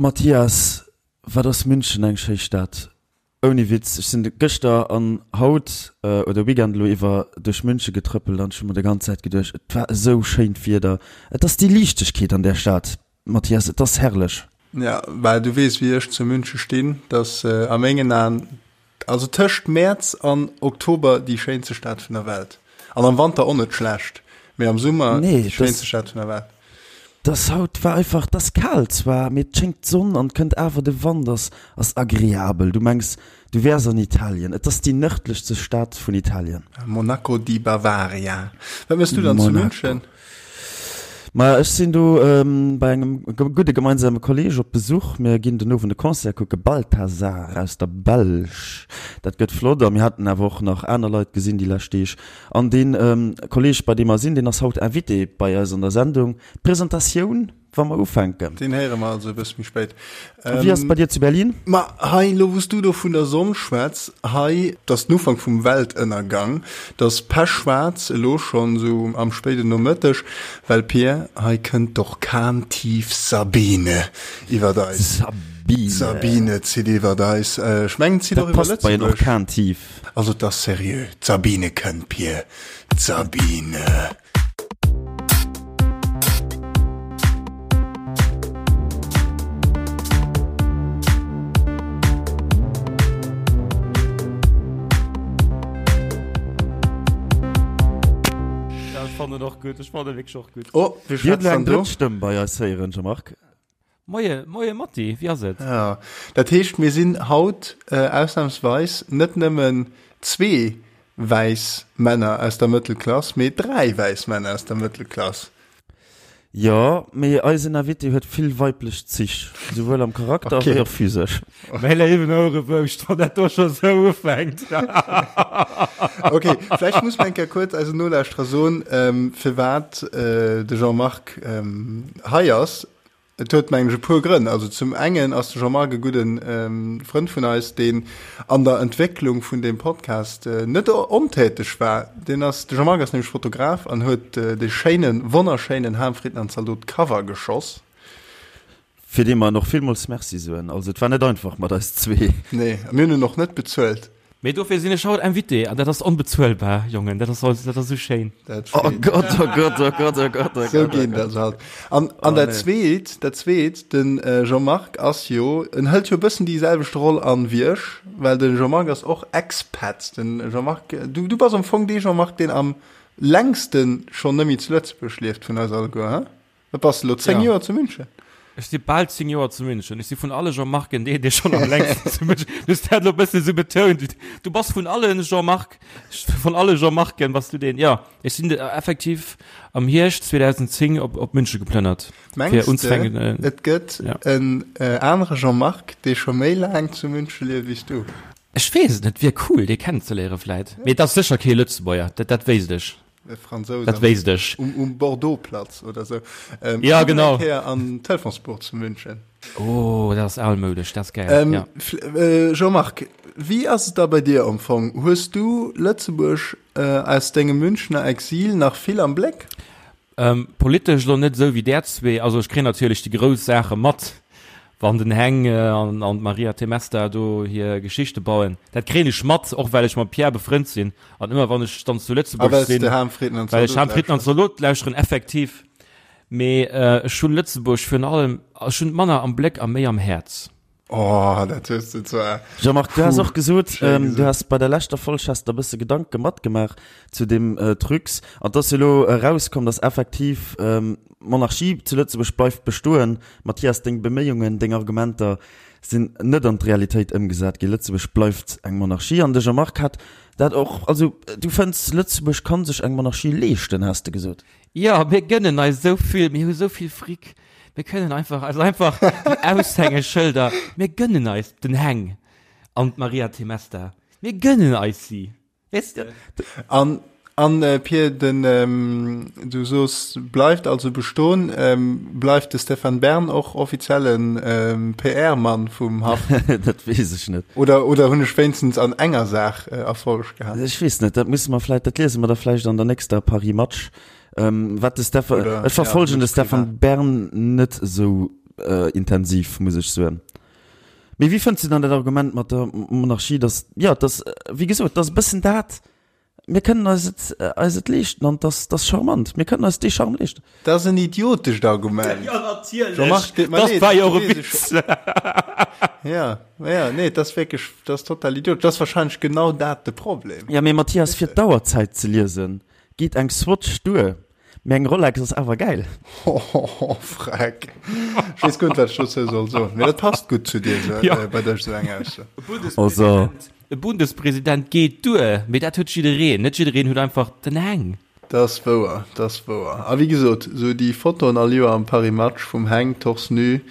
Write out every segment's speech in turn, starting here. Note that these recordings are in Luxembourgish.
Mathias, wat ass München eng schéi Stad. Ouni Witz, ech sinn gëschter an haut oder Weekend elo iwwer duerch München getrëppelt an ech hu mer de ganz Zäit geduecht, et war esou schéint Wieder. Et ass déi Liichtegkeet an där Stad, Mathias, et ass herrlech. Ja, well du weess wéi ech zu München stinn, dass a mengen Aen, also tëscht Mäerz an Oktober déi schéinste Stad vun der Welt. An am Wanter och net schlecht, mee am Summer déi schéinste Stad vun der Welt. Dass haut war einfach, dass kal zwar, mee et schéngt d'Sonn an kënnt awer de Wand ass ass agreabel. Du mengs du wärs an Italien. Et ass déi nërdlechste Stad vun Italien. Monaco di Bavaria. Wat mëss du dann zu München? Maja ech sinn do bei engem gudde gemeinsame Kolleg op Besuch. Mir ginn den Owend e Concert kucke, Balthazar aus der Belsch. Dat gëtt flott a mir haten awer och nach aner Leit gesinn déi lescht Deeg. An dee Kolleg, bei deem mer sinn, deen ass haut Invité bei eis an der Sendung. D'Presentatioun, wa mer ufänken. Deen héiere mer also e bësse méi spéit. Wéi ass et bei dir zu Berlin? Ma hei, elo wou s du do vun der Sonn schwätz, hei, 't ass den Ufank vum Weltënnergang, 't ass pechschwaarz elo schonn, esou am spéiden Nomëtteg, well Pir, hei kënnt d'Orkantief Sabine iwwert eis. Sabine. D'Sabine zitt iwwert eis. Ech mengen, zitt och iwwer Lëtzebuerg. Dat passt bei en Orkantief. Also 't ass seriö, d'Sabine kënnt, Pir, d'Sabine. Ja, ech fannen och gutt, ech fannen wierklech och gutt. Oh, wie schwätzt dann do? Drëtt Stëmm bei eis héieren, Jean-Marc. Moie, moie Matti, wéi ass et? Ja, dat heescht, mir sinn haut ausnahmsweis net nëmmen zwee wäiss Männer aus der Mëttelklass, mee dräi wäiss Männer aus der Mëttelklass. Jo, mee eisen Invité huet vill weiblech Zich, souwuel am Charakter wéi och physesch. Mäi léiwen Ouerebouscht, wann dat do scho sou ufänkt. Ok, vläicht muss mer eng Kéier kuerz eisen Nolauschterer soen, firwat de Jean-Marc hei ass. Et huet mengen ech e puer Grënn. Also zum engen ass de Jean-Marc e gudden Frënd vun eis, deen an der Entwécklung vun deem Podcast net ontäteg war. Deen ass, de Jean-Marc ass nämlech Fotograf an huet dee schéinen, wonnerschéinen Ham Fritten an Zaldot Cover geschoss. Fir dee mer en och villmools Merci soen. Also et war net einfach mat eis zwee. Nee, a mir hunn en och net bezuelt. Mee dofir sinn ech haut Invité an dat ass onbezuelbar, Jongen, dat ass dat ass esou schéin. Dat oh Gott, oh Gott, oh Gott, oh Gott, oh Sou geet dat halt. An, an oh, dat nee. zweet, dat zweet, den äh, Jean-Marc ass jo, en hëlt jo e bëssen déi selwecht Roll an wéi ech, well den Jean-Marc ass och Expat. Den Jean-Marc, du, du bass am Fong dee Jean-Marc, deen am längsten schonn nëmmi zu Lëtzebuerg lieft vun eis alleguer, he? Wat bass de elo, 10 ja. Joer zu München? Ech si bal 10 Joer zu München. Ech si vun alle Jean-Marcen deen, dee schonn am längsten zu München. Du hues dat elo e bësse sou betount. Du bass vun allen Jean-Marc, vun alle Jean-Marcen bass du deen. Ja, ech sinn effektiv am Hierscht 2010 op, op München geplënnert. Mengs de, äh, et gëtt ja. en äh, anere Jean-Marc, dee scho méi laang zu München lieft wéi s du? Ech weess et net, wier cool, dee kennenzeléiere vläit. Mee et ass sécher kee Lëtzebuerger, dat, dat wéisst ech. E Fransous Dat wéisst ech. Um, um Bordeaux-Platz oder sou. Ähm, ja, genau. Eng an Telefonsbuch zu München. Oh, dat ass almoudesch, dat ass geil. Ähm, ja. äh, Jean-Marc, wéi ass et da bei dir am Fong? Hues du Lëtzebuerg äh, aus dengem Münchner Exil nach vill am Bléck? Ähm, politesch lo net esou wéi där zwee. Also ech kréien natierlech déi grouss Saache mat, wann den Heng an an d'Maria Temesta do hir Geschichte bauen. Dat kréien ech mat, och well ech mam Pierre befrënnt sinn. An ëmmer wann ech dann zu Lëtzebuerg sinn, well ech Ham Fritten an Zalot lauschteren, effektiv. Mee ech hunn Lëtzebuerg virun allem, ech hunn et manner am Bléck a méi am Häerz. Oh, dat hues de zwar. Jean-Marc, du has och gesot, du has bei der leschter Folg has der e bësse Gedanke matgemaach zu deem Trucs. An 't ass jo elo erauskomm, dass effektiv d'Monarchie zu Lëtzebuerg bleift bestoen. Mathias, deng Beméiungen, deng Argumenter sinn net an d'Realitéit ëmgesat ginn. Lëtzebuerg bleift eng Monarchie. An de Jean-Marc hat dat och, also du fënns, Lëtzebuerg kann sech eng Monarchie leeschten, has de gesot. Jo, mir gënnen eis esou vill, mir hu esou vill Fric. Mir kënnen einfach eis einfach déi Aushängeschëlder, mir gënnen eis den Heng an d'Maria Temesta, mir gënnen eis si, weess de. An, an Pir, den, du soos bleift also bestoen, bleift de Stéphane Bern och offizielle PR-Mann vum Haff? Dat weess ech net. Oder, oder hunn ech wéinstens an enger Saach Erfolleg gehat? Ech weess net, dat musse mer vläicht, dat liese mer da vläicht an der nächster Paris Match. Ähm, wat de Stefan, Oder, ech verfolgen ja, de Stefan Bern net esou. intensiv, muss ech soen. Mee wéi fënns du dann dat Argument mat der Monarchie, dass, jo, dass, wéi gesot, dass e bëssen dat, mir kënnen eis et, eis et leeschten an dass, dass charmant, mir kënnen eis dee Charme leeschten. Dat ass en idiotescht Argument. Jo, natierlech. Jean-Marc, deet mer Dat leed, war jo och e weess ech. Witz. Ja, ja, nee, dat ass wierklech, dat ass total idiotesch. Dat ass wahrscheinlech genau dat de Problem. Ja, mee Mathias, fir d'Auerzäit ze liesen, geet eng Swatch duer. Mee eng Rolex ass awer gäil. Hohoho, freck. Ech weess guer net, wat ech dozou soll soen. Mee dat passt gutt zu dir, sou, Ja. bei dech, sou eng Ausso. Also. E Bundespresident geet duer, mee dat huet jiddereen. Net jiddereen huet einfach den Heng. Dat ass wouer, dat ass wouer. A wéi gesot, sou déi Fotoen all Joer am Paris Match vum Heng torse nu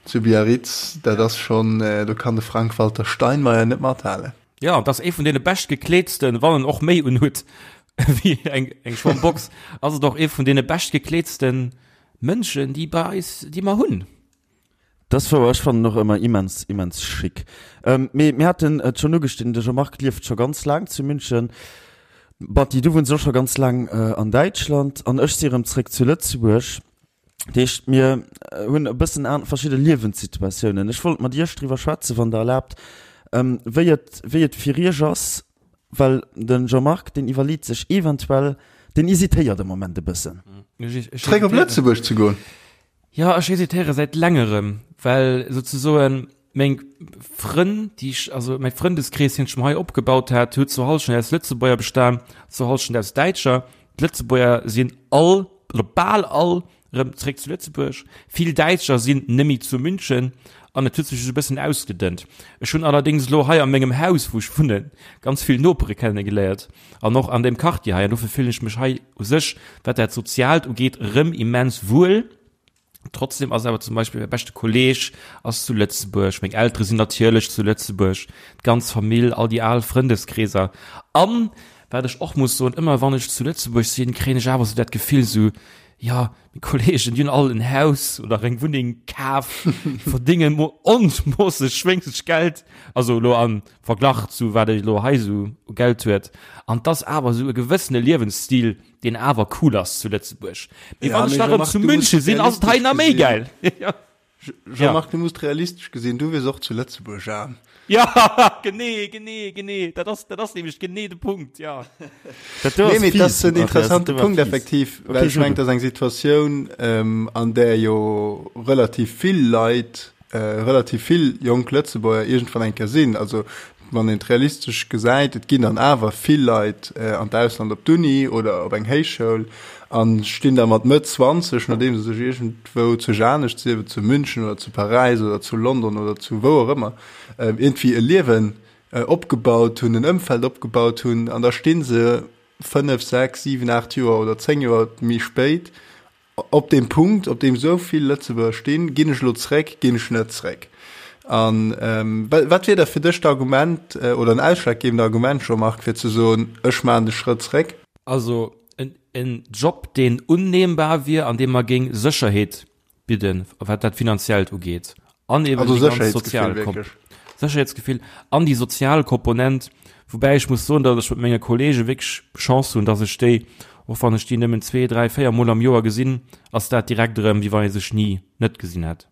zu Biarritz, dat ass schonn, do kann de Frank-Walter Steinmeier net mathalen. Jo, et ass ee vun deene beschtgekleetsten, wann en och méi unhuet wéi eng, eng Schwammbox, ass et och ee vun deene beschtgekleetsten Mënschen, déi bei eis, déi mer hunn. Dat ass wouer, ech fannen och ëmmer immens, immens chic. Mee mir haten et schonn ugeschnidden, de Jean-Marc lieft scho ganz laang zu München. Batty, du wunns och scho ganz laang an Däitschland an ech si erëm zréck zu Lëtzebuerg. Dat heescht, mir hunn e bëssen an verschidde Liewenssituatiounen. Ech wollt mat Iech driwwer schwätzen, wann Der erlaabt, wéi et, wéi et fir Iech ass, well de Jean-Marc, deen iwwerleet sech eventuell, deen hesitéiert am Moment e bëssen. Zréck op Lëtzebuerg ze goen? Jo, ech hesitéiere säit längerem, well souzesoen meng Frënn, déi ech, also mäi Frëndeskrees, deen ech mer hei opgebaut hat, huet zur Hallschent aus Lëtzebuerger bestan, zur Hallschent aus Däitscher. D'Lëtzebuerger sinn all, oder bal all, erëm zréck zu Lëtzebuerg. Vill Däitscher sinn nëmme zu München an et huet sech esou e bëssen ausgedënnt. Ech hunn allerdéngs elo hei a mengem Haus, wou ech wunnen, ganz vill Nopere kennegeléiert an och an deem Quartier hei an dofir fillen ech mech hei u sech, wat dat Soziaalt ugeet, erëm immens wuel. Trotzdem ass awer zum Beispill mäi beschte Kolleg ass zu Lëtzebuerg, meng Eltere sinn natierlech zu Lëtzebuerg, d'ganz Famill, all déi al Frëndeskreeser. An, wat ech och muss soen, ëmmer wann ech zu Lëtzebuerg sinn, kréien ech awer sou dat Gefill sou, jo, meng Kolleegen, déi hunn all en Haus oder eng Wunneng kaf, verdéngen onmoosseg schwéngslech Geld, also elo am Verglach zu wat ee elo hei sou u Geld huet. An 't ass awer sou e gewëssene Liewensstil, deen awer cool ass zu Lëtzebuerg. Mee Ja, wann ech mee da rëm Jean-Marc, zu du muss München sinn, ass et hei realistesch nach méi gesinn. gäil. Ja. Jean-Marc, du muss realistesch gesinn, du wiers och zu Lëtzebuerg aarm. Ja, genee, genee, genee. Dat ass, dat ass nämlech genee de Punkt, ja. Dat do Nee, ass mee dat fies, ass en Mathias, dat interessante do war Punkt fies. effektiv, well Okay, ech so mengen, du. dat ass eng Situatioun, ähm, an där jo relativ vill Leit, äh, relativ vill jonk Lëtzebuerger iergendwann eng Kéier sinn. Also Wann een et realistesch gesäit, et ginn dann awer vill Leit an d'Ausland op d'Uni oder op eng Héichschoul a stinn da mat Mëtt 20, nodeem se sech iergendwou zu anescht, sief et zu München oder zu Paräis oder zu London oder zu wou och ëmmer, iergendwéi e Liewen opgebaut hunn, en Ëmfeld opgebaut hunn, an da sti se 5, 6, 7, 8 Joer oder 10 Joer méi spéit Op deem Punkt, op deem esou vill Lëtzebuerger stinn, ginn ech elo zréck, ginn ech net zréck? A wat wier da fir dech d'Argument oder en ausschlaggebend Argument, Jean-Marc, fir ze soen, ech maachen de Schrëtt zréck? Also en Job, deen unnehmbar wier an dee mer géing Sécherheet bidden, wat dat Finanziellt ugeet, an eben Also déi ganz Sécherheetsgefill sozial wierklech. Sécherheetsgefill an déi sozial Komponent, woubäi ech muss soen, datt ech mat menge Kollege wierklech Chance hunn, datt ech déi, och wann ech déi nëmmen zwee, dräi, véier Mol am Joer gesinn, ass dat direkt erëm, wéi wann ee sech ni net gesinn hätt.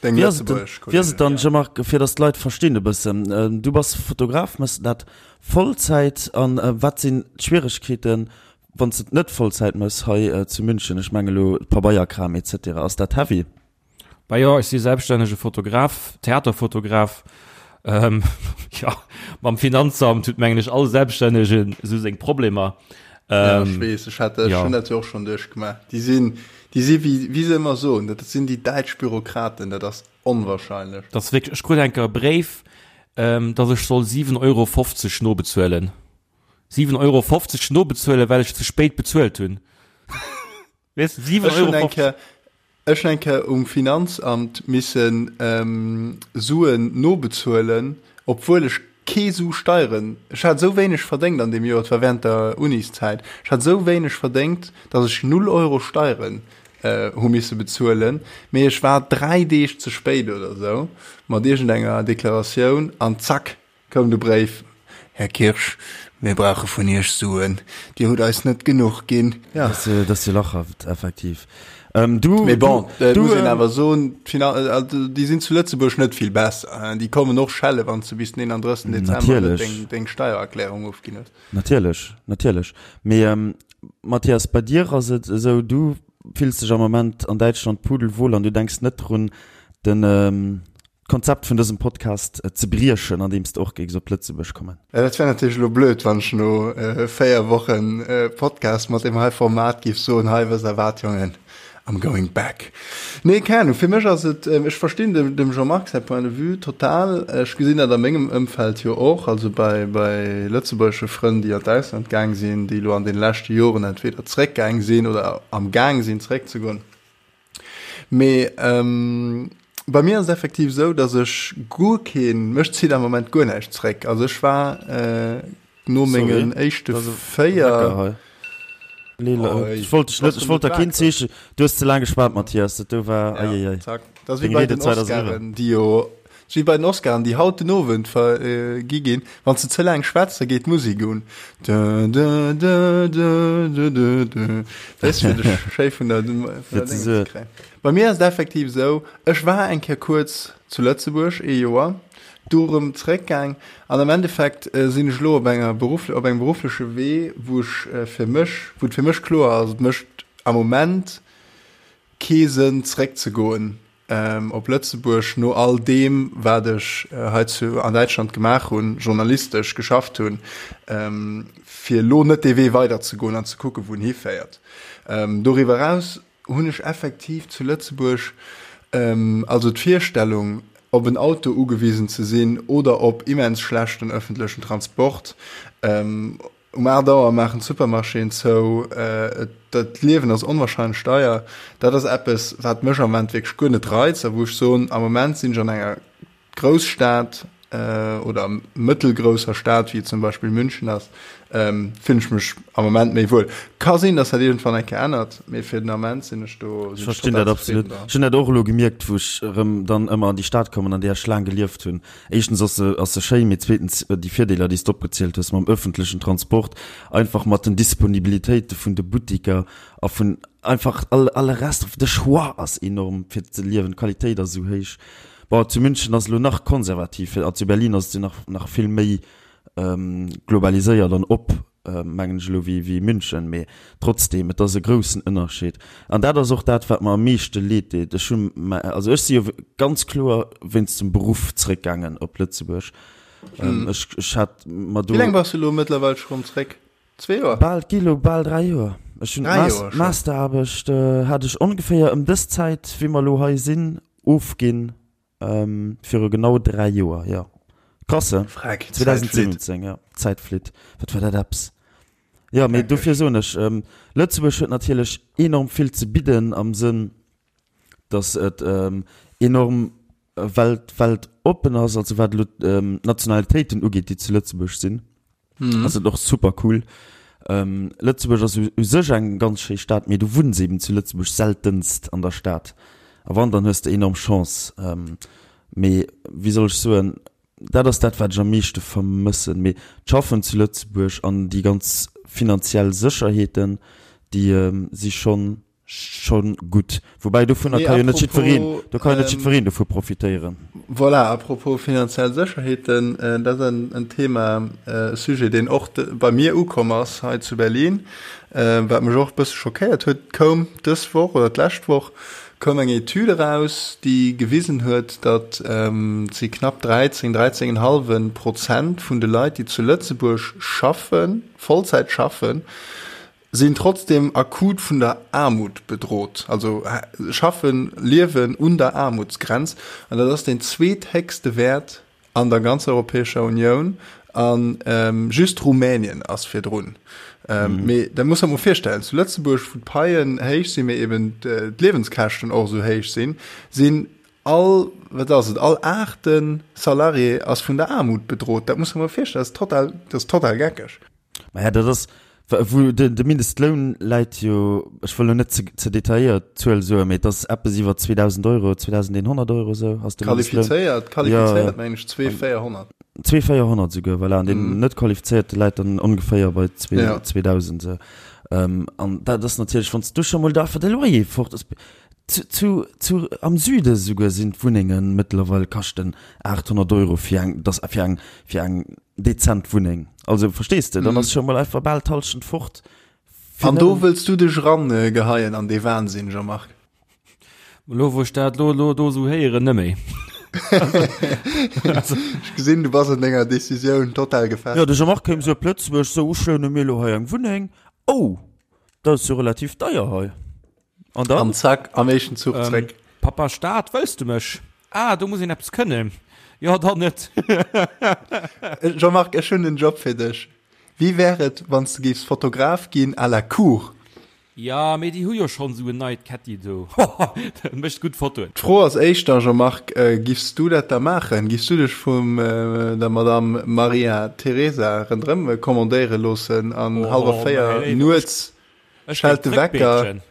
Deng Wéi ass et denn, lëtzebuergesch wéi ass et Kollegen. dann, Jean-Marc, fir datt d'Leit verstinn e bëssen, du bass Fotograf, méchs dat Vollzäit an wat sinn d'Schwieregkeeten, wann s de et net Vollzäit méchs hei zu München? Ech menge lo Pabeierkram et cetera, ass dat heavy? Bah jo, ech si selbststännege Fotograf, Theaterfotograf. Ähm, ja, mam Finanzamt huet mengen ech all Selbststännegen esou seng Problemer. Ja, ech Ähm, weess, ech hat, ech ja. hunn dat jo och schonn duerchgemaach. Déi sinn, déi si wéi, wéi se ëmmer soen, dat sinn déi däitsch Bürokraten, dat ass onwahrscheinlech. Dat ass wierklech, ech krut eng Kéier e Bréif, ähm, datt ech soll 7,50 Euro nobezuelen. 7,50 Euro nobezuelen, well ech ze spéit bezuelt hunn. Weess, 7,50 Ech hunn Euro. eng Kéier, ech hunn eng Kéier um Finanzamt missen Suen nobezuelen, obwuel ech kee Su Steieren, ech hat esou wéineg verdéngt an deem Joer, et war während der Uniszäit, ech hat esou wéineg verdéngt, datt ech null Euro Steieren hu misse bezuelen, mee ech war 3 Deeg ze spéit oder esou mat iergendenger Deklaratioun an zack, Koum de Bréif, Här Kirsch, mir brauche vun Iech Suen, Dir hutt eis net genuch ginn. Ja. Dat ass jo lachhaft, effektiv. Ähm, du, Mee bon, du, et du, muss een ähm, awer soen, d'Fina-, also déi sinn zu Lëtzebuerg net vill besser, hein. Déi kommen och schelle wann s de bis den 31. Dezember net Natierlech. deng, deng Steiererklärung ofginn hues. Natierlech, natierlech. Mee ähm, Mathias, bei dir ass et esou, du fills dech am Moment an Däitschland pudelwohl an du denks net drun, den, ähm, d'Konzept vun dësem Podcast ze briechen, andeems de och géifs op Lëtzebuerg kommen. Ja, dat wär natierlech elo blöd, wann ech no 4 Wochen Podcast mat deem hei Format géif soen, hei, wësst der wat, Jongen, I'm going back. Nee, keng Ahnung, fir mech ass et, ech verstinn dem, dem Jean-Marc säi Point de vue total. Ech gesinn dat a mengem Ëmfeld jo och, also bei, bei lëtzebuergesche Frënn, déi an d'Ausland gaang sinn, déi elo an deene leschte Joren entweder zréckgaang sinn oder am Gaang sinn zréckzegoen. Mee bei mir ass et effektiv esou, datt ech guer keen, mech zitt am Moment guer näischt zréck. Also ech war no mengen éischte 4. Ech wollt dech net, ech wollt der keen Zeeche, du hues ze laang geschwat Mathias, dat do war, eieiei. Zack, dat ass wéi bei den Oscaren, déi jo, wéi bei den Oscaren, déi haut den Owend vergi ginn. Wann s de ze laang schwätz, da geet d'Musek un. Dö, dö, dö, dö, dö, dö, dö. Weess, fir dech schéi vun der, vun der Dénge ze kréien. Bei mir ass et effektiv esou, ech war eng Kéier kuerz zu Lëtzebuerg, ee Joer, du erëm zeréckgaang an am Endeffekt sinn ech elo op enger Beruff, op engem beruffleche Wee, wou ech fir mech, wou et fir mech kloer ass, et mécht am Moment kee Sënn zeréckzegoen op Lëtzebuerg no all deem, wat ech hei zu an Däitschland gemaach hunn, journalistesch geschafft hunn, fir elo net dee Wee weiderzegoen an ze kucken, wou en hiféiert. Doriwwer eraus hunn ech effektiv zu Lëtzebuerg also d'Virstellung, op en Auto ugewisen ze sinn oder op immens schlechten ëffentlechen Transport, Um 8 Auer maachen d'Supermarchéen zou, dat Liewen ass onwahrscheinlech deier. Dat ass eppes, wat mech am Moment wierklech guer net reizt a wou ech soen, am Moment sinn ech an enger Grousstad oder mëttelgrousser Stad, wéi et zum Beispill München ass, fillen ech mech am Moment méi wuel. Ka sinn, datt dat iergendwann eng Kéier ännert, mee fir den Ament sinn ech do, Ech verstinn dat absolut. Ech hunn dat och elo gemierkt, wou ech erëm dann ëmmer an déi Stad kommen, an där ech laang gelieft hunn. Éischtens ass se, ass se schéin, mee zweetens déi Virdeeler, déi s de opgezielt hues mam öffentlechen Transport, einfach mat den Disponibilitéite vun de Buttiker a vun einfach all, alle Rest, de Choix ass enorm fir ze liewen, d'Qualitéit ass esou héich. Bon, zu München ass elo nach konservativ a zu Berlin ass et jo nach, nach vill méi globaliséiert an op. mengen ech elo, wéi München, mee trotzdem, et ass e groussen Ënnerscheed. An dat ass och dat, wat mer am meeschte leed deet. Ech hu, also ech si jo ganz kloer wéinst dem Beruff zréckgaangen op Lëtzebuerg. Ech, ech hat mer do. Wéi laang bass du elo mëttlerweil scho rëm zréck? Zwee Joer? Bal, gi elo bal 3 Joer. Ech hunn d'Masteraarbecht hat ech ongeféier ëm dës Zäit, wéi mer elo hei sinn, ofginn. Viru genau 3 Joer, jo. Krass, he? Freck, d'Zäit flitt. 2017, jo. D'Zäit flitt. Wat war dat eppes? Jo, mee dofir soen ech, Lëtzebuerg huet natierlech enorm vill ze bidden am Sënn, datt et enorm welt, weltoppen ass, also wat elo d'Nationalitéiten ugeet, déi zu Lëtzebuerg sinn. Ass et och super cool. Lëtzebuerg ass u sech eng ganz schéi Stad, mee du wunns eben zu Lëtzebuerg seltenst an der Stad. A wann, dann hues de enorm Chance. Mee wéi soll ech soen, dat ass dat, wat ech am meeschte vermëssen. Mee d'Schaffen zu Lëtzebuerg an déi ganz finanziell Sécherheeten, déi si schonn Schon gutt. Woubäi dovunner ka jo net jiddwereen, do ka jo net jiddwereen dovu profitéieren. Voilà, à propos finanziell Sécherheeten, dat ass en Thema, e Sujet, deen och bei mir ukomm ass hei zu Berlin, wat mech och e bësse schockéiert huet. Et koum dës Woch oder d'lescht Woch koum eng Etüd eraus, déi gewisen huet, datt et si knapp 13, 13,5 Prozent vun de Leit, déi zu Lëtzebuerg schaffen, Vollzäit schaffen, sinn trotzdem akut vun der Aarmut bedrot, also schaffen, liewen un der Aarmutsgrenz, an dat ass deen zweethéchste Wäert an der ganzer Europäescher Unioun, a just Rumänien ass virdrun. Mee dat muss der mol virstellen, zu Lëtzebuerg, wou d'Paien héich sinn, mee eben d'Liewenskäschten och esou héich sinn, sinn all, wat ass et, all aachte Salarié ass vun der Aarmut bedrot. Dat muss der mol virstellen, dat ass total, dat ass total geckeg. Maja, dat ass, wou de, de Mindestloun läit jo, ech wëll lo net ze, ze detailléiert d'Zuel soen, mee et ass eppes iwwer 2.000 Euro, 2.100 Euro esou ass de Mindestloun. Qualifizéiert, qualifizéiert mengen ech 2.400. 2.400 esouguer, voilà, an deen net qualifizéierte läit dann ongeféier bei 2.000 esou. An dat ass natierlech, wann s du scho mol da einfach de Loyer fort ass, zu, zu, zu, am Süde souguer sinn d'Wunnenge mëttlerweil kaschten 800 Euro fir eng, dass fir eng, fir eng dezent Wunneng. Also verstees de, dann ass scho mol einfach bal d'Hallschent fort. An do wëlls du dech eran geheien an dee Wahnsinn, Jean-Marc? Lo wou ech dat lo lo do sou héieren, nëmméi. Ech gesinn, du bass an denger Decisioun total gefestigt. Jo, de Jean-Marc kéim sou op Lëtzebuerg, sou, ech loune mir lo hei eng Wunneng. Oh, dat ass jo relativ deier hei. An dann? An zack, am éischten Zuch zréck. Pappa Staat, wëlls du mech? Ah, do muss een eppes kënnen. Jo, dann net. Jean-Marc, ech hunn en Job fir dech. Wéi wär et, wann s de géifs Fotograf ginn à la cour? Jo, mee déi hu jo schonn esou en neit Ketti do. Dat mécht gutt Fotoen. D'Fro ass éischter, Jean-Marc, giffs du dat da maachen? Giffs du dech vum der Madame Maria Teresa rënderëm kommandéiere loossen an hallwer 4 nuets schellt de Wecker?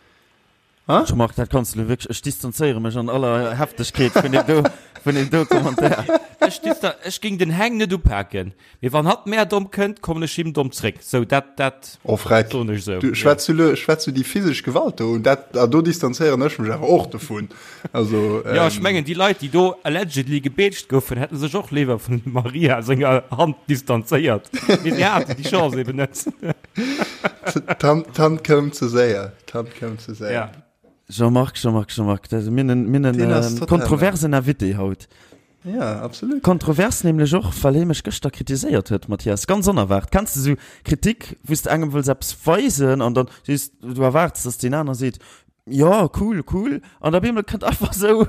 Ha? Jean-Marc, dat kanns du lo wierklech, ech distanzéiere mech an aller Heftegkeet vun deem do, vun deem do Commentaire. Ech distan, ech géing den Heng net upaken, mee wann hatt mär domm kënnt, kommen ech him domm zréck. Sou, dat, dat Oh Freck, soen ech sou. Du schwätz du lo, schwätz du déi physesch Gewalt do un? Dat, ah, do distanzéieren ech mech awer och dovun. Also, Jo, ech mengen, déi Leit, déi do allegedly gebeetscht goufen, hätte sech och léiwer vun dem Maria senger Hand distanzéiert, mee si haten déi Chance eben net. D'Hand koum ze séier. D'Hand koum ze séier. Ja. Jean-Marc, Jean-Marc, Jean-Marc, dat mir nen, mir nen äh, kontroversen Invité haut. Ja, absolut. Kontrovers nämlech och, well hie mech gëschter kritiséiert huet, Mathias, ganz onerwaart. Kenns de sou Kritik, wou s de engem wëlls eppes weisen an dann sees du erwaarts, dass deen aner seet, ja, cool, cool, an op eemol kënnt einfach sou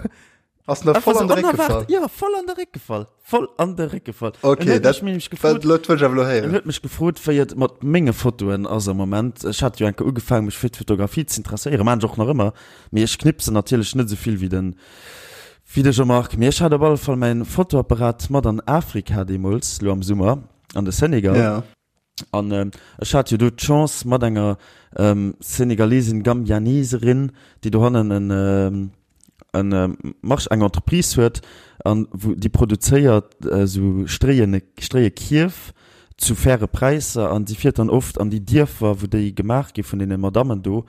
Ass nach voll an de Réck gefall. Ja, voll an de Réck gefall. Voll an de Réck gefall. Okay, dat gefrot, dat wëll ech awer elo héieren. En huet mech gefrot, wéi et mat menge Fotoen ass am Moment. Ech hat jo eng Kéier ugefaangen, mech fir d'Fotografie ze interesséieren, maan ech och nach ëmmer, mee ech knipsen natierlech net esou vill wéi den, wéi de Jean-Marc. Mee ech hat op alle Fall mäin Fotoapparat mat an Afrika deemools, lo am Summer, an de Senegal. Ja. An ech hat jo do d'Chance mat enger Senegalesin, Gambianeserin, déi dohannen en en March, eng Entreprise huet an wou déi produzéiert esou Stréien, Stréiekierf zu faire Präisser an si fiert dann oft an déi Dierfer, wou déi gemaach gi vun deene Madammen do,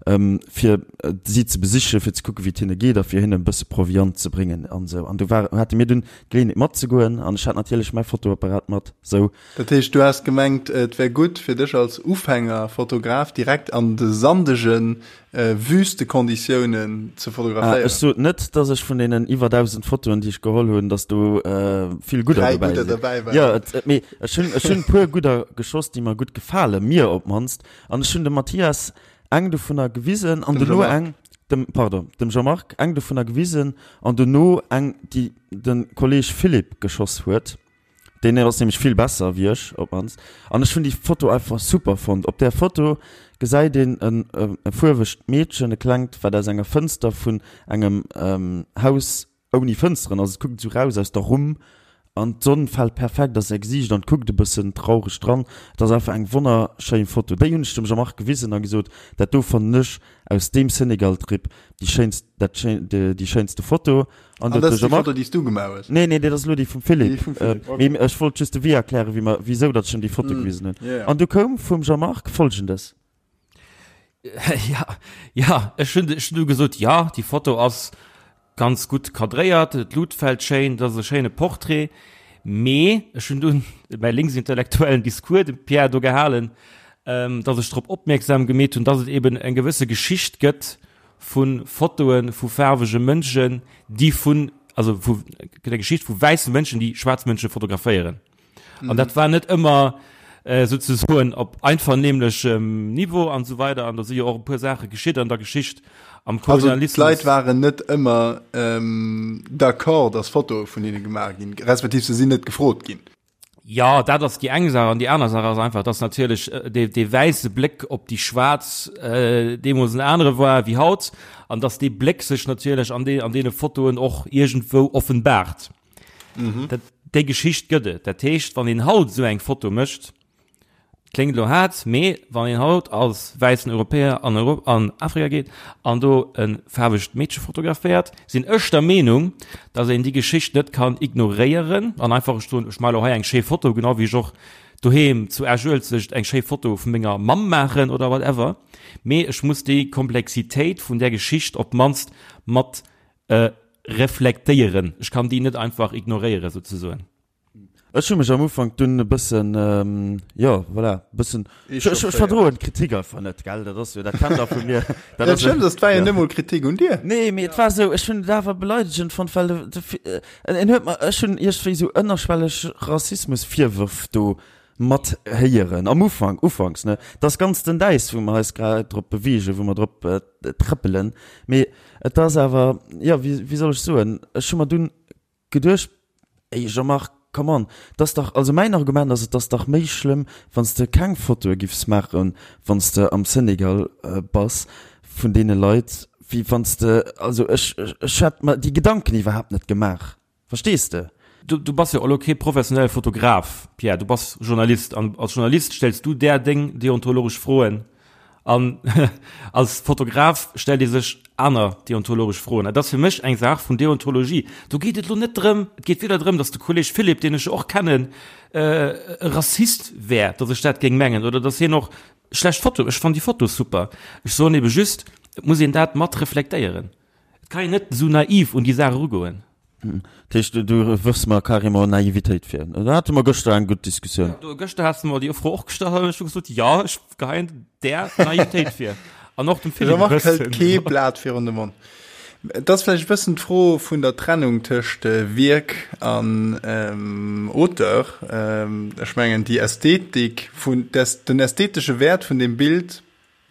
fir si ze besichen, fir ze kucken, wéi et hinne geet a fir hinnen e bësse Proviant ze bréngen an esou. An do war, hate mir dunn d'Geleeënheet matzegoen an ech hat natierlech mäi Fotoapparat mat, sou. Dat heescht, du has gemengt, et wär gutt fir dech als Ufängerfotograf direkt an de sandege Wüstekonditiounen ze fotograféieren? Ech sot net, dass ech vun deenen iwwer 1.000 Fotoen, déi ech geholl hunn, dass do vill gudder dobäi sinn. Dobäi waren. Jo, et, mee ech hunn, ech hunn e puer gudder geschoss, déi mer gutt gefalen, mir op d'mannst. An ech hunn dem Mathias eng dovunner gewisen an dono eng, dem, pardon, dem Jean-Marc eng dovunner gewisen an dono eng, déi de Kolleg Philippe geschoss huet. Deen ass nämlech vill besser wéi ech op mannst. An ech hunn déi Foto einfach super fonnt. Op där Foto gesäit een en e fuerwegt Meedchen, e klengt, wat aus enger Fënster vun engem Haus ouni Fënsteren ass. Et kuckt esou raus aus der Rumm an d'Sonn fält perfekt a säi Gesiicht an et kuckt e bëssen traureg dran. Et ass einfach eng wonnerschéin Foto. Déi hunn ech dem Jean-Marc gewisen a gesot, dat do fannen ech aus deem Senegal-Trip déi schéinst, dat schéin, déi schéinste Foto. An dat ass déi Foto, déi s du gemaach hues? Nee, nee, dat ass elo déi vum Philippe. Déi vum Philippe, okay. Mee ech wollt just de Wee erklären, wéi mer, wisou datt ech him déi Foto gewisen hunn. Yeah. An du koum vum Jean-Marc Folgendes. Ja, ja, ech hunn, ech hunn du gesot, ja, déi Foto ass ganz gutt kadréiert, d'Lut fält schéin, dat ass e schéine Portrait. Mee ech hunn dunn mäi linksintellektuellen Discours dem Pierre do gehalen, datt ech drop opmierksam gemeet hunn, datt et eben eng gewësse Geschicht gëtt vu Fotoe vu faarwege Mënschen, déi vun, also vu der Geschicht vu wäisse Mënschen, déi schwaarz Mënsche fotograféieren. An dat war net ëmmer äh, souzesoen op einvernehmlechem Niveau an esou weider. An do si jo och e puer Saache geschitt an der Geschicht am Also Kolonialismus. d'Leit waren net ëmmer ähm, d'accord, dass Fotoe vun hinne gemaach ginn, respektiv se sinn net gefrot ginn. Jo, dat ass déi eng Saach. An déi aner Saach ass einfach, dass natierlech dee, dee wäisse Bléck op déi Schwaarz deemools en anere war wéi haut an dass dee Bléck sech natierlech an dee, an deene Fotoen och iergendwou offenbaart. Dat, déi Geschicht gëtt et. Dat heescht, wann een haut esou eng Foto mécht. Kléngt elo haart, mee wann een haut als wäissen Europäer an Europ an Afrika geet an do e faarwegt Meedche fotograféiert, sinn ech der Meenung, datt een déi Geschicht net kann ignoréieren an einfach soen, ech maache elo hei eng schéi Foto, genau wéi ech och doheem zu Esch-Uelzecht eng schéi Foto vu menger Mamm maachen oder whatever. Mee ech muss déi Komplexitéit vun där Geschicht op d'mannst mat reflektéieren. Ech kann déi net einfach ignoréieren, souzesoen. Ech hu mech am Ufank dunn e bëssen, jo, voilà, e bëssen, ech verdroen d'Kritik einfach net, gell, dat ass jo, dat kennt der vu mir. Dat ass schlëmm, dat war jo net mol Kritik un dir. Nee, mee et war esou, ech hunn et awer beleidegend fonnt, well de, en huet mer, ech hunn iergendwéi esou ënnerschwelleg Rassismusvirwërf do mat héieren, am Ufank, ufanks, ne, et ass ganz dënn Äis, wou mer eis grad drop beweegen, wou mer drop trëppelen, mee et ass awer, jo, wéi, wéi soll ech soen, ech hu mer dunn Geduecht, Ey Jean-Marc, come on, 't ass dach, also mäin Argument ass, et ass dach méi schlëmm, wann s de keng Fotoe giffs maachen, wann s de am Senegal bass, vun deene Leit, wéi wann s de, also ech, ech hätt mer déi Gedanken iwwerhaapt net gemaach, verstees de? Du, du bass jo elo kee professionelle Fotograf, Pierre, du bass Journalist an als Journalist stells du där deng deontologesch Froen. An als Fotograf stellt ee sech aner deontologesch Froen. Dat ass fir mech eng Saach vun Deontologie. Do geet et elo net drëm, et geet weder drëm, datt de Kolleg Philippe, deen ech jo och kennen, e Rassist wär, datt ech dat géing mengen oder datt hien och schlecht Fotoe, ech fannen déi Foto super. Ech soen ebe just, et muss een dat mat reflektéieren. Et kann een net esou naiv un déi Saach erugoen. Dat heescht, du wërfs mer carrément Naivitéit vir. Do hate mer gëschter eng gutt Diskussioun. Jo, gëschter has de mer déi Fro och gestallt an ech hu gesot, jo, ech geheien där Naivitéit vir. An och dem Philippe e Jean-Marc hëlt bëssen. kee Blat virun de Mond. Et ass vläicht e bëssen d'Fro vun der Trennung tëscht Wierk an Auteur. Ech mengen, déi Ästhetik vun, den ästhetesche Wäert vun deem Bild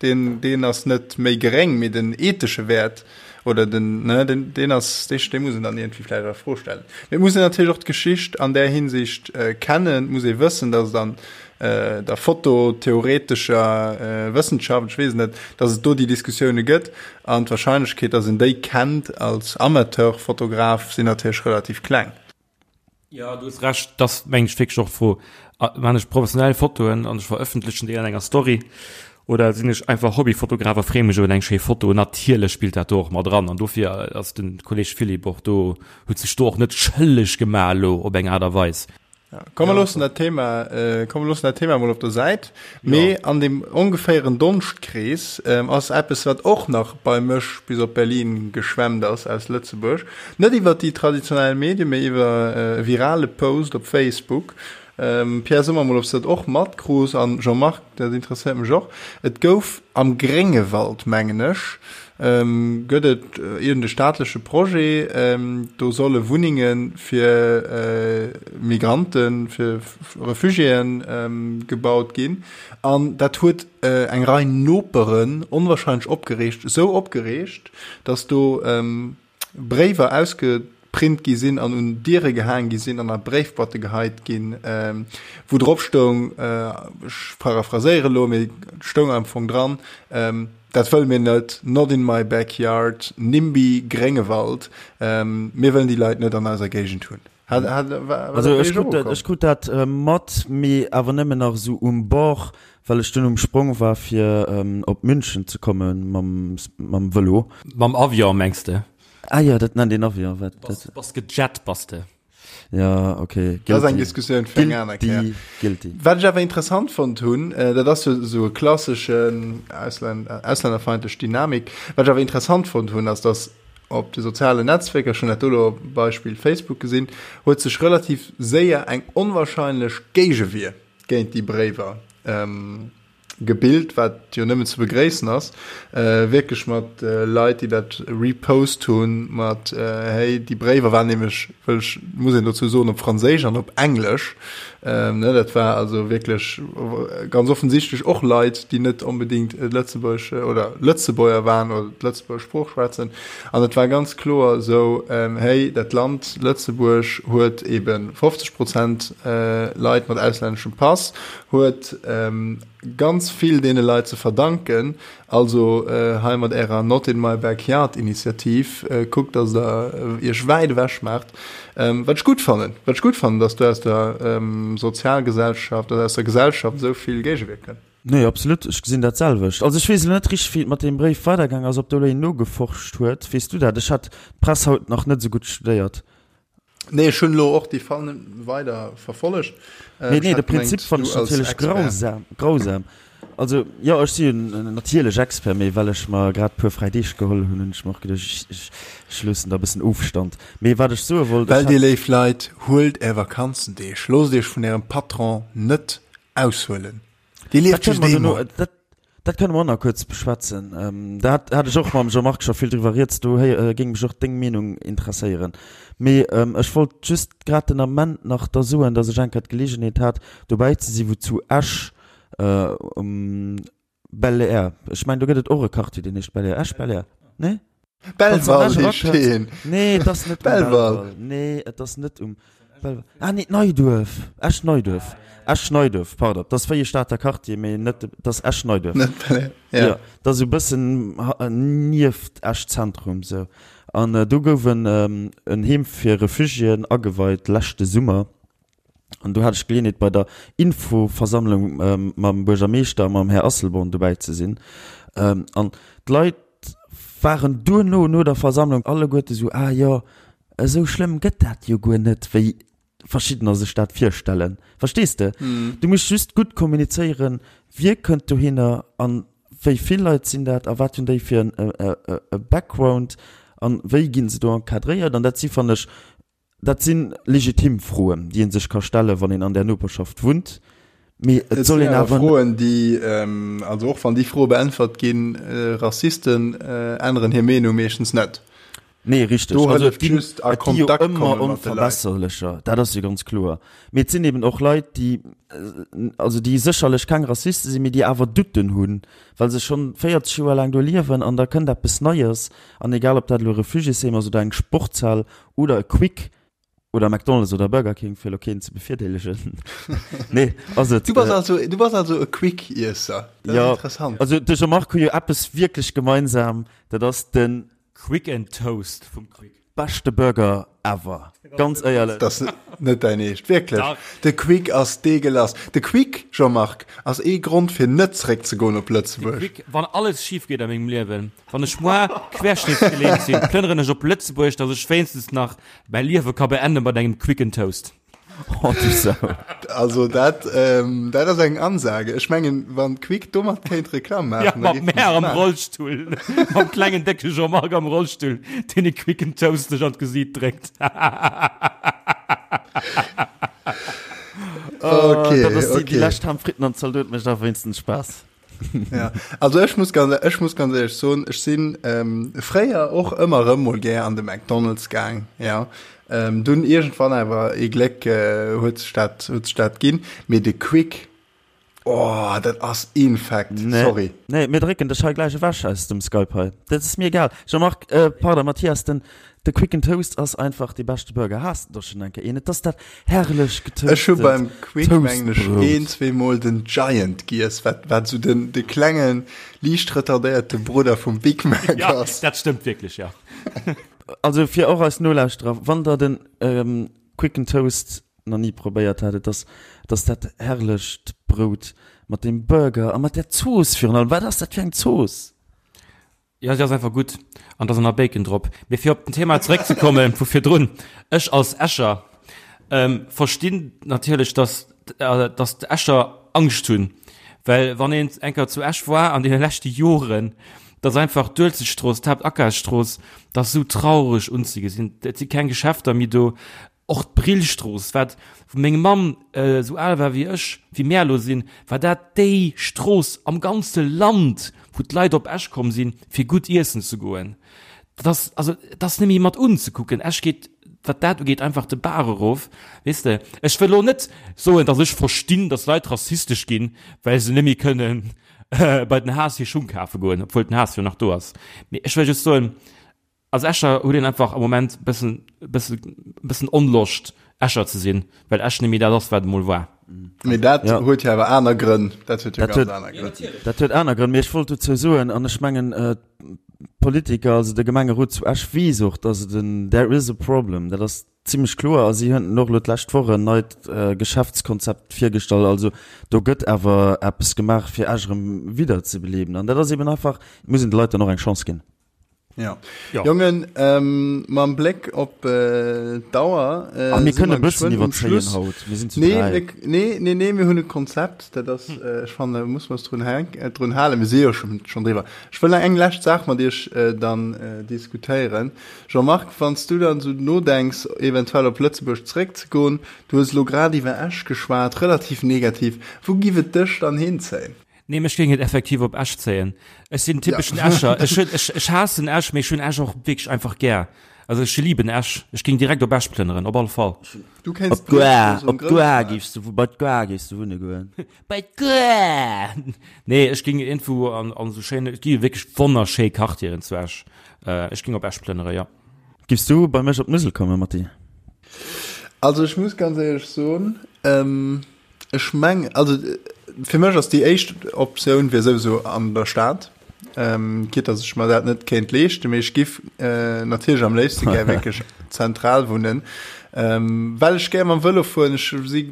Deen, deen ass net méi geréng, mee den ethesche Wäert oder den, ne, den, deen ass, dee, dee muss een dann iergendwéi vläicht a Fro stellen. Mee et muss een natierlech och d'Geschicht an där Hinsicht kennen. Et muss ee wëssen, datt et an der fototheoretescher Wëssenschaft, ech weess et net, datt et do déi Diskussioune gëtt. An d'Wahrscheinlechkeet, datt een déi kennt als Amateurfotograf, sinn natierlech relativ kleng. Jo, du hues Recht, et ass mengen ech wierklech och d'Fro, Maan ech professionell Fotoen an ech verëffentlechen déi an enger Story oder sinn ech einfach Hobbyfotograf a freeë mech iwwer eng schéi Foto? Natierlech spillt dat do och mat eran an dofir ass de Kolleg Philippe och do, huet sech do och net schëlleg gemaach elo op eng Aart a Weis. Komm mer loossen dat Thema, komm mer loossen dat Thema mol op der Säit. Mee an deem ongeféieren Donschtkrees ass eppes, wat och nach bei mech bis op Berlin geschwemmt ass aus Lëtzebuerg. Net iwwer déi traditionell Medien, mee iwwer e virale Post op Facebook. Pierre, so mer mol, ob s de dat och matkruus an Jean-Marc, dat interesséiert mech och. Et gouf am Gréngewald, mengen ech, gëtt et iergend e staatleche Projet, do solle Wunnenge fir Migranten, fir Refugiéen gebaut ginn. An dat huet eng Rei Noperen onwahrscheinlech opgereegt, esou opgereegt, datt do Bréiwer ausgeprint gi sinn an un Diere gehaang gi sinn an a Bréifboîte geheit ginn, wou drop stoung, ech paraphraséiere elo, mee et stoung am Fong dran, Dat wëlle mir net, not in my backyard, NIMBY, Gréngewald, mir wëllen déi Leit net an eiser Géigend hunn. Hat, hat, war, war Also ech krut dat, ech krut dat äh, mat, mee awer nëmmen nach esou um Bord, well ech dunn um Sprong war fir ähm, op München ze komme mam, mam Vëlo. Mam Avion mengs de? Ah jo, dat nennt een Avion, wat dat? Bass gejet bass de. Ja, okay. Guilty. Dat ass eng Diskussioun fir eng aner Kéier. Guilty. Wat ech awer interessant fonnt hunn, äh, dat ass jo esou e klasseschen Ausländ auslännerfeindlech Dynamik, wat ech awer interessant fonnt hunn, ass, dass Op de sozialen Netzwierker, ech hunn dat do elo Beispill Facebook gesinn, huet sech relativ séier eng onwahrscheinlech Géigewier géint déi Bréiwer gebilt, wat jo nëmmen ze begréissen ass. Wierklech mat Leit, déi dat repost hunn, mat hey, déi Bréiwer waren nämlech, wëll ech, muss een dozou soen, op Franséisch an op Englesch. Ne, dat war also wierklech ganz offensichtlech och Leit, déi net onbedéngt Lëtzebuerg oder Lëtzebuerger waren oder d'Lëtzebuerger Sprooch schwätzen. An et war ganz kloer esou, hey, dat Land Lëtzebuerg huet ebe 50 Prozent Leit mat auslänneschem Pass, huet. ganz vill deene Leit ze verdanken. Also hei mat ärer Not in my backyard Initiativ, kuckt dass der iech wäit ewech maacht. Wat ech gutt fannen, wat ech gutt fannen, dass do aus der Sozialgesellschaft oder aus der Gesellschaft esou vill Géigewier kënnt. Nee, absolut, ech gesinn dat selwecht. Also ech weess elo net richteg wéi et mat deem Bréif weidergaang ass, ob do elo een nogeforscht huet. Weess du dat? Ech hat d'Press haut nach net esou gutt studéiert. Nee, ech hunn elo och déi Fall net weider verfollegt. Mee nee, de Prinzip fannen ech natierlech grausam, grausam. Also jo, ech si jo natierlech Expert, mee well ech mer grad e puer fräi Deeg geholl hunn, hunn ech mer och geduecht, ech, ech loossen da e bëssen Ofstand. Mee wat ech soe wollt, ech Well, dir léif Leit, huelt är Vakanzendeeg, loosst iech vun ärem Patron net aushuelen. Dir lieft just eemol. Dat kënne mer och nach kuerz beschwätzen. Da hat hat ech och mam Jean-Marc scho vill driwwer rieds. Do géing mech och deng Meenung interesséieren. Mee ech wollt just grad den Ament nach da soen, datt ech eng Kéier d'Geleegenheet hat, dobäi ze si wou zu Esch um Bel-Air, ech mengen do gëtt et och e Quartier, deen heescht Bel-Air, Esch-Bel-Air, nee? Belval heescht deen. Nee, et ass net um Belval. Nee, et ass net um Belval. Ah nee, Neiduerf. Esch-Neiduerf. Esch-Neiduerf, pardon. Dat ass wéi e Stater Quartier, mee net, et ass Esch-Neiduerf. Net Bel-Air, ja. Jo, dat ass esou e bëssen nieft Esch-Zentrum esou. An do gouf en en Heem fir Refugiéen ageweit leschte Summer. An do hat ech d'Geleeënheet bei der Infoversammlung mam Buergermeeschter a mam Här Asselborn dobäi ze sinn. An d'Leit waren duerno, no der Versammlung, alleguerte sou, Ah jo, esou schlëmm gëtt dat jo guer net, wéi verschiddener sech dat virstellen. Verstees de? Du muss just gutt kommunizéieren, wie kënnt dohinner an wéi vill Leit sinn dat a wat hunn déi fir e Background an wéi gi se do encadréiert. An dat si, fannen ech, Dat si legitim Froen, déi ee sech ka stellen, wann een an där Noperschaft wunnt. Mee et soll een awer. Froen, déi, also och wann déi Froe beäntwert ginn, Rassisten änneren hir Meenung meeschtens net. Nee, richteg. Do hëlleft just a Kontakt komme mat de Leit. Et gi jo ëmmer Onverbesserlecher, dat ass jo ganz kloer. Mee et sinn eben och Leit, déi, also déi sécherlech keng Rassiste sinn, mee déi awer Doutten hunn, well se schonn 40 Joer laang do liewen an da kënnt eppes Neies. An egal, ob dat elo e Refugiésheem ass oder eng Sportshal Oder e Quick oder McDonald's oder Burger King, fir elo keen ze bevirdeelegen. Nee, ass et. Du bass also, du bass also e Quick-Iesser. Dat ass interessant. Also de Jean-Marc hu jo eppes wierklech gemeinsam, dat ass de. Quick and Toast vum Quick. Beschte Burger ever, ganz éierlech. Dat ass net däin Eescht, wierklech. De Quick ass deegelass. De Quick, Jean-Marc, ass ee Grond fir net zeréckzegoen op Lëtzebuerg. De Quick, wann alles schif geet a mengem Liewen, Wann ech moar querschnittsgelähmt sinn, plënneren ech op Lëtzebuerg, dass ech wéinstens nach mäi Liewe ka beenden mat engem Quick and Toast. Oh du Sau. Also dat, ähm, dat ass eng Ansage. Ech mengen, wann Quick domat kéint Reklamm maachen, Ja, mat mär am Rollstull, mam klengen décke Jean-Marc am Rollstull, deen e Quick and Toast sech an d'Gesiit dréckt. Okay, dat ass déi, okay. déi lescht Ham Fritten an Zaldot mécht awer wéinstens Spaass. Ja, also ech muss ganz, ech muss ganz ehrlech soen, ech sinn ähm, fréier och ëmmer erëm mol gär an de McDonald's gaang, ja. Ähm, dunn iergendwann awer ee Gléck äh, huet sech dat, huet sech dat ginn. Mee de Quick, oh, dat ass infekt, Nee. sorry. Nee, mir drécken dech hei gläich ewech aus dem Skype hei. Dat ass mir egal. Jean-Marc, äh, pardon, Mathias, den, de Quick and Toast ass einfach dee beschte Burger. Has de der schonn eng Kéier een? Et ass dat herrlech Ech hu beim Quick mengen ech een, zweemol den Giant giess, wat, wat esou den, de klengen, liicht retardéierte Brudder vum Big Mac Ja, ass. dat stëmmt wierklech, ja. Also fir och eis Nolauschterer, wann der den Quick and Toast nach ni probéiert hat, et ass, et ass dat herrlecht Brout mat dem Burger a mat där Zooss virun allem. Wat ass dat fir eng Zooss? Jo, si ass einfach gutt an da ass nach Bacon drop. Mee fir op den Thema zeréckzekomme vu virdrun, Ech als Escher verstinn natierlech, dass dass d'Escher Angscht hunn, well wann een eng Kéier zu Esch war an deene leschte Joren, dass einfach d'Uelzechtstrooss, d'Haaptakafsstrooss, dat ass esou traureg unzegesinn. Et si keng Geschäfter méi do, Och d'Brillstrooss, wat, wou meng Mamm esou al war wéi ech, wéi mär elo sinn, war dat déi Strooss am ganze Land, wou d'Leit op Esch komm sinn, fir gutt iessen ze goen. Dat ass, also, et ass net méi mat unzekucken. Esch geet, wat dat ugeet, einfach de Baach erof, weess de. Ech wëll elo net soen, datt ech verstinn, datt Leit rassistesch ginn, well se net méi kënnen bei den Haas hir Schung kafe goen, obwuel den Haas jo nach do ass. Mee ech wëll just soen, Als Escher huet een einfach am Moment bëssen, bëssen, bëssen Onloscht, Escher ze sinn, well Esch net méi dat ass, wat et emol war. Mee dat ja. huet jo awer aner Grënn. Dat huet jo ganz aner Grënn. Dat huet aner Grënn. Mee ech wollt dozou soen, an ech mengen, äh, d'Politiker, also de Gemengerot zu Esch weess och, dass et en there is a problem. Dat ass zimmlech kloer. A si hunn och elo d'lescht Woch en neit äh, Geschäftskonzept virgestallt. Also do gëtt awer eppes gemaach, fir Esch erëm wiederzebeleben. An dat ass eben einfach, et muss een de Leit dann och eng Chance ginn. Ja. ja. Jongen, ähm, mam Bléck op äh, d'Auer. Äh, ah, mir kënne bëssen iwwerzéien haut. Mir sinn zu nee, mir, nee, nee, nee, mir hunn e Konzept. Dat ass, hm. äh, ech fanne muss mer drun, äh, drun halen. Mir si jo schon, schon driwwer. Ech wëll eng lescht Saach mat Iech äh, dann äh, diskutéieren. Jean-Marc, wann s du dann so nodenks, eventuell op Lëtzebuerg zeréckzegoen, du hues lo grad iwwer Esch geschwat, relativ negativ. Wou giff et dech dann hinzéien? Nee, mech géing et effektiv op Esch zéien. Ech sinn typeschen ja. Escher. Ech, hun, ech, ech haassen Esch, mee ech hunn Esch och wierklech einfach gär. Also ech lieben Esch. Ech géing direkt op Esch plënneren, op alle Fall. Du kenns op d'Goa, op d'Goa géifs du, bei d'Goa géifs du wunne goen. Bei d'Goa! Nee, ech géing iergendwou an, an esou schéine, et gi jo wierklech wonnerschéi Quartieren zu Esch. Äh, ech géing op Esch plënnere, ja. Giffs du bei mech op d'Musel kommen, Matti? Also ech muss ganz éierlech soen, ähm, Ech meng, also fir mech ass déi éischt Optioun wier souwisou an der Stad, quitte dass ech mer dat net kéint leeschten, mee ech giff natierlech am léifste gär wierklech zentral wunnen, well ech gär mam Vëlo fueren. Ech si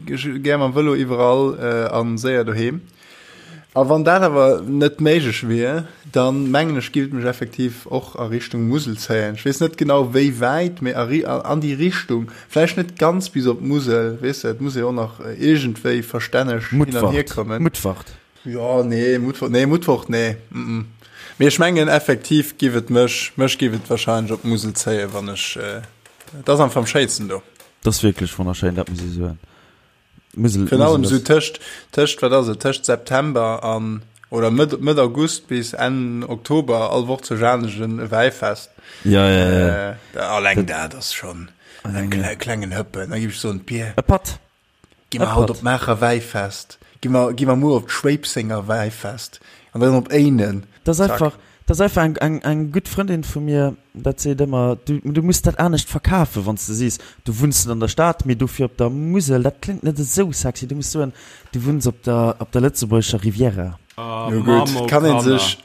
gär mam Vëlo iwwerall a séier doheem. A wann dat awer net méiglech wier, dann mengen ech giff et mech effektiv och a Richtung Musel zéien. Ech weess net genau wéi wäit, mee a an déi Richtung, vläicht net ganz bis op d'Musel, weess de, et muss ee och nach iergendwéi verstänneg hin an hier kommen. Mutfert. Jo, nee, Mutfert, nee, Mutfert, nee, mm. Mee ech mengen effektiv giff et mech, mech giff et wahrscheinlech op d'Musel zéien, wann ech, et ass einfach am schéinsten do. Et ass wierklech wonnerschéin, dat muss ee soen. Musel, Virun allem sou tëscht, tëscht, wat ass et, tëscht September an, oder Mëtt, Mëtt August bis Enn Oktober, all Woch zu Jaanegen e Wäifest. Ja, ja, ja. Äh, alleng dat ass schonn en kle, klengen Hëppen. Da giff ech soen, Pier, E Patt. gi mer haut op d'Maacher Wäifest, gi mer, gi mer muer op d'Schwéipsenger Wäifest an dann op Éinen. Dat ass einfach, dat ass einfach eng, eng, eng gutt Frëndin vu mir, dat seet ëmmer, du, du muss dat anescht verkafen, wann s de sees, du wunns net an der Stad, mee dofir op der Musel. Dat kléngt net esou sexy. Du muss soen, du wunns op der, op der lëtzebuergescher Riviera. Jo gutt, et kann een sech,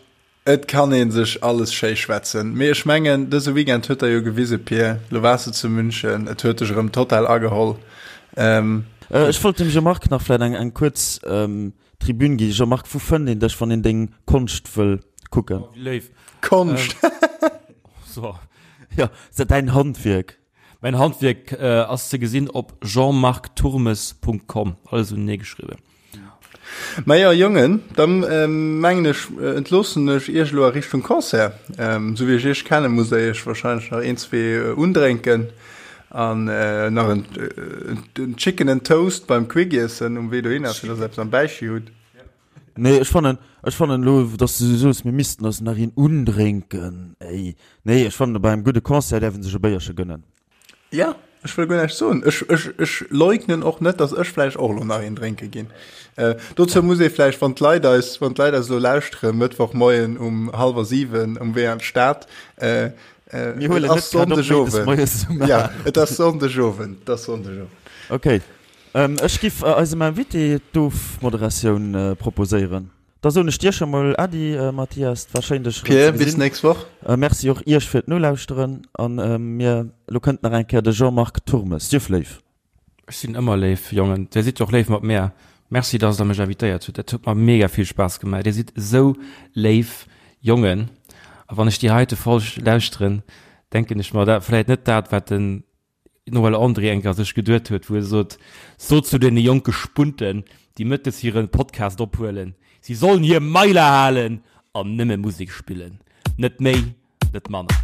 et kann een sech alles schéi schwätzen. Mee ech mengen, dëse Weekend huet der jo gewise, Pir, lo waars de zu München, et huet dech erëm total ageholl. Ech wollt dem Jean-Marc nach vläit eng, eng kuerz Tribün gi. Jean-Marc, wou fënnt een dech, wann een deng Konscht wëll kucken? Oh, wéi léif. Konscht! So. Jo, se däin Handwierk. Mäin Handwierk ass ze gesinn op jeanmarcturmes.com, alles unenee geschriwwen. Majo Jongen, dann mengen ech entloossen ech iech elo a Richtung Concert. Sou wéi ech iech kennen, musst der iech wahrscheinlech nach een, zwee undrénken an nach en Chicken and Toast beim Quick iessen um Wee dohinner, fir dass der eppes am Bäichi hutt. Nee, ech fannen, ech fannen elo, dass du sou soos, mir missten eis nach een undrénken, ey. Nee, ech fannen, bei engem gudde Concert däerf een sech e Béierche gënnen. Ja, ech wëll guer näischt soen. Ech, ech, ech leugnen och net, dass ech vläicht och elo nach een drénke ginn. Äh, dozou muss ee vläicht, wann d'Leit eis, wann d'Leit eis elo lauschtere Mëttwochmoien um hallwer 7 um Wee an d'Stad, äh, äh, Mir huelen et ass net grad op méindes Sonndegowend. moies um Ja, et ass Sonndegowend, et ass Sonndegowend. Okay. Ähm, ech giff eisem Invité d'Ofmoderatioun proposéieren. Da soen ech dir scho mol Äddi, Mathias. Et war schéin dech erëm ze Pierre, bis gesinn. nächst Woch. Merci och iech fir d'Nolauschteren. An mir, elo kënnt nach eng Kéier de Jean-Marc Turmes. Sief léif. Ech sinn ëmmer léif, Jongen. Dir sidd jo och léif mat mär. Merci, dass der mech invitéiert hutt. Dat huet mer mega vill Spaass gemaach. Dir sidd esou léif Jongen. A wann ech déi heite Folg lauschteren, denken ech mer, dat vläit net dat, wat den Noël André eng Kéier sech geduet huet, wou e sot, Sot zu deene jonke Spunten, déi mëttes hire Podcast ophuelen, si sollen hir Mailer halen an nëmme Musek spillen. Net méi, net manner.